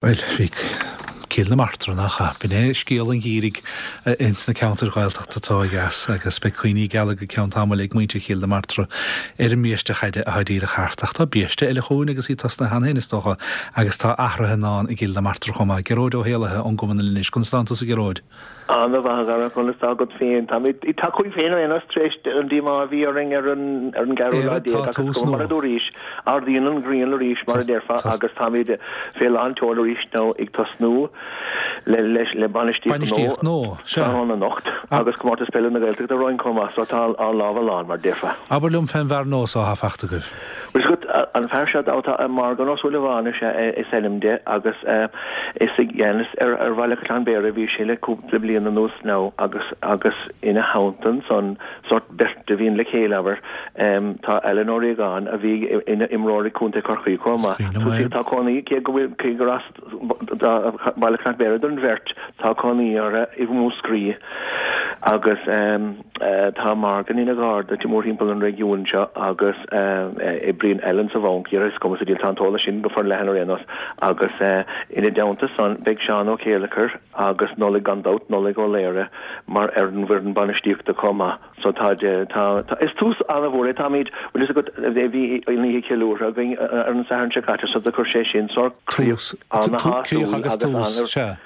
Bhuel, bhí Cill na Martra, nach ea? B'in é scéal an gheimhridh ins na ceantair Ghaeltachta atá ó dheas agus beidh cuimhní geala go ceann tamaill ag muintir Chill na Martra ar an mbiaiste chaide atá díreach thart. Ach tá biaiste eile chugainn agus í tosnaithe cheana féin, is dócha, agus tá athruithe i ndán i gCill na Martra chomh maith. Gearóid Ó hÉallaithe ón gCumann linn anois. Conas tánn tusa, a Ghearóid? Ana-mhaith a Dhara, conas tá agat féin? Táimid ag tacú féin ar aon nós tar éis an díomá a bhí orainn ar an ar an gceathrú lá Éire, tá agus tús go mar nua. a dúraís, ardaíonn an ghrian arís mar a déarfá agus táimid fé lán tseoil arís now ag tosnú le le le bainistíocht Bainistíocht nua nua, sea. tráthnóna anocht agus Comórtas Peile na Gaeltachta romhainn chomh maith so tá ár lámha lán mar a déarfá. Abair liom fén bhfear nua so atá fachta agaibh. Bhuel is agat, an fear seo atá Morgan Ó Súilleabháin is ea is ainm de agus is i gceannas ar Bhaile Chaisleáin Bhéarra a bhí sé le cúpla bliain anuas now agus agus ina theannta ansan sórt beirt a bhíonn le chéile abair tá Alan Ó Riagáin a bhí ina imreoir ag Contae Chorcaí chomh Is maith. cuimhin liom é. Tá cónaí cé go bhfuil cé gur as Baile Chnoc Bhéarra don bheirt tá cónaí orthu i Múscraí agus tá Morgan ina gharda mórthimpeall an réigiúin seo agus oibríonn Alan sa bhanc, is cuma sa diabhal, tá an t-eolas sin go forleathan ar aon nós, agus ina dteannta san beidh Seán Ó Céileachair agus Nollaig gan dabht, Nollaig Ó Laoire mar ar an bhfoireann bainistíochta chomh maith. So tá, tá, tá, is tús an-mhór é, táimid, bhfuil fhios agat, bhí an oíche ceiliúrtha againn ar an Satharn seo caite so do chuir sé sin sórt críoch Tús, ana-shásúil críoch agus agus tús, ana, sea.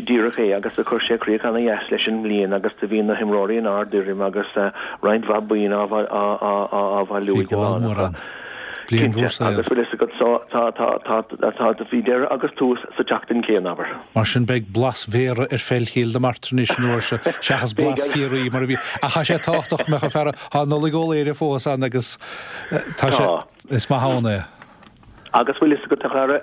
díreach é, agus do chuir sé críoch ana-dheas leis an mbliain agus do bhí na himreoirí in ard-fhoirm agus roinnt mhaith boinn á, á, á, á, á bhailiú Bhí ag an gabháil lán mór acu. ann. Bliain Cinnte, mhór saoil. agus bhfuil fhios agat, so tá, tá, tá, tá, bhí deireadh agus tús sa tseachtain chéanna, abair. Mar sin beidh blas Bhéarra ar pheil Chill na Martra anois an uair seo seachas Beidh blas Chiarraí mar a bhí. Ach tá sé tábhachtach go mbeadh an fear, tá Nollaig Ó Laoire fós ann agus tá sé, Tá. is maith ann é. Agus bhfuil fhios agat a chara,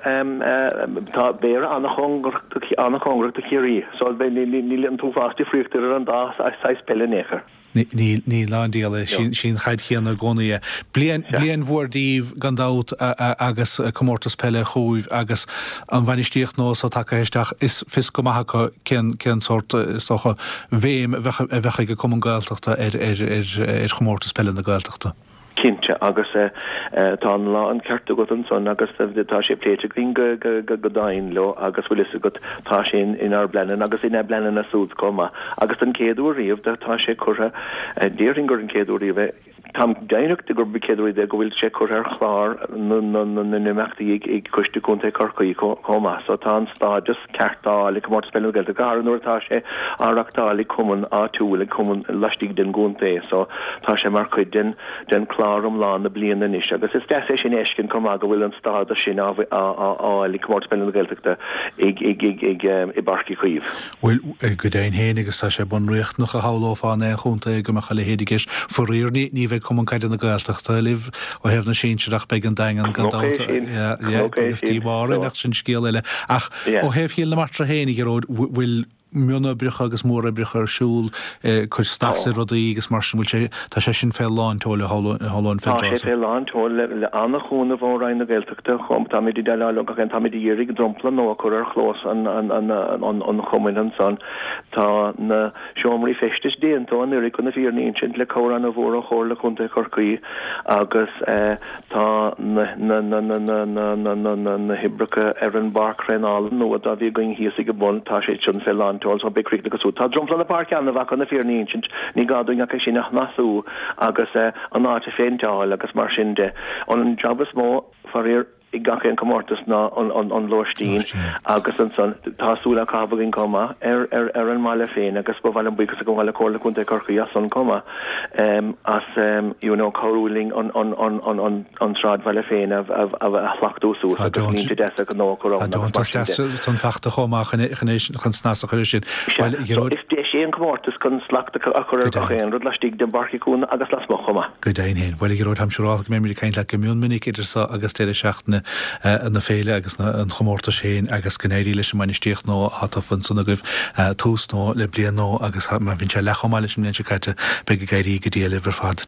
tá Béarra an-chóngarach do, an-chóngarach do Chiarraí so níl an t-uafás difríochta idir an dá saghas peile in aon chor. Níl, níl ná an diabhal é. Sí an chaid chéanna i gcónaí é. Bliain, bliain mhór daoibh gan dabht agus comórtas peile chugaibh agus an bhainistíocht nua so tagtha isteach, is fios go maith acu cén, cén sórt, is dócha, bhéim a bheadh, a bheadh ag an Cumann Gaeltachta ar, ar, ar, ar chomórtas peile na Gaeltachta. Cinnte, agus tá an lán ceart agat ansan agus tá sé pléite againn go domhain leo agus bhfuil fhios agat tá sé inár bpleananna agus ina bpleananna súd chomh maith. Agus don chéad uair riamh tá sé curtha, déarfainn gur an chéad uair riamh é, táim deimhneach de gurb an chéad uair riamh é go bhfuil sé curtha ar chlár na n-imeachtaí ag Coiste Contae Chorcaí chomh maith. So tá an stádas ceart á fháil ag Comórtas Peile na Gaeltachta, go háirithe nuair atá sé á reachtáil ag cumann áitiúil, ag cumann laistigh den gcontae. So tá sé mar chuid den den chlár iomlán na bliana anois agus is deas é sin a fheiscint chomh maith go bhfuil an stádas sin á fháil ag Comórtas Peile na Gaeltachta ag ag ag ag i bPáirc Uí Chaoimh. Bhuel, go deimhin féin agus tá sé bunriachtanach a shamhlófá in aon chontae go mbeadh a leithéid i gceist. Faraor ní ní bheidh Cumann Caide na Gaeltachta libh Ó thaobh na sinsear ach beidh an Daingean gan dabht. Agus díomá orainn ach sin scéal eile. Ach ó thaobh Chill na Martra féin, a Ghearóid, bhfuil mionoibreacha agus móroibreacha ar siúl, cur snas ar rudaí agus mar sin, bhfuil sé, tá sé sin fé lán tseoil a shamhlóinn fén tráth Tá sé fé lán tseoil le an-chúnamh ó Roinn na Gaeltachta chomh, táimid ag déileáil leo gach aon, táimid ag iarraidh dromchla nua a chur ar chlós an chumainn ansan. Tá na. Seomraí feistis déanta anuraidh chun na fírinne a insint, le cabhair an-mhór ó Chomhairle Contae Chorcaí agus tá na hoibreacha ar an bpáirc thraenála nua dá bhí againn thíos ag an bun, tá sé sin fé lán tseoil so beidh críochnaithe go Tá dromchla na páirce an-mhaith chun na fírinne a insint, ní gá dúinn ach é sin a shnasú agus an áit a phéinteáil agus mar sin de. An jab is mó, faraor, i gach aon comórtas ná an lóistín agus ansan tá súil á caitheamh againn chomh maith ar an mbaile féin agus ba mhaith liom buíochas a ghabháil le Comhairle Contae Chorcaí as san chomh maith as you know cabhrú linn an sráidbhaile féin a shlachtú suas agus línte deasa gnó a chur ann agus mar sin de. Tá deontas san fachta chomh maith chun snas a chur air sin. Sea, so is deis é an comórtas chun slacht a chur ar gach aon rud laistigh den bPáirc Uí Chaoimh agus lasmuigh chomh maith. Go deimhin féin. Bhuel, a Ghearóid, táim siúrálta go mbeimid ag caint leat go mion minic idir seo agus deireadh seachtaine na féile agus an chomórtais féin agus go n-éirí leis an mbainistíocht nua atá tofa ansan agaibh, tús nua le bliain nua agus má bhíonn sé leath chomh maith leis an mbliain seo caite, beidh ag éirí go diail libh ar fad.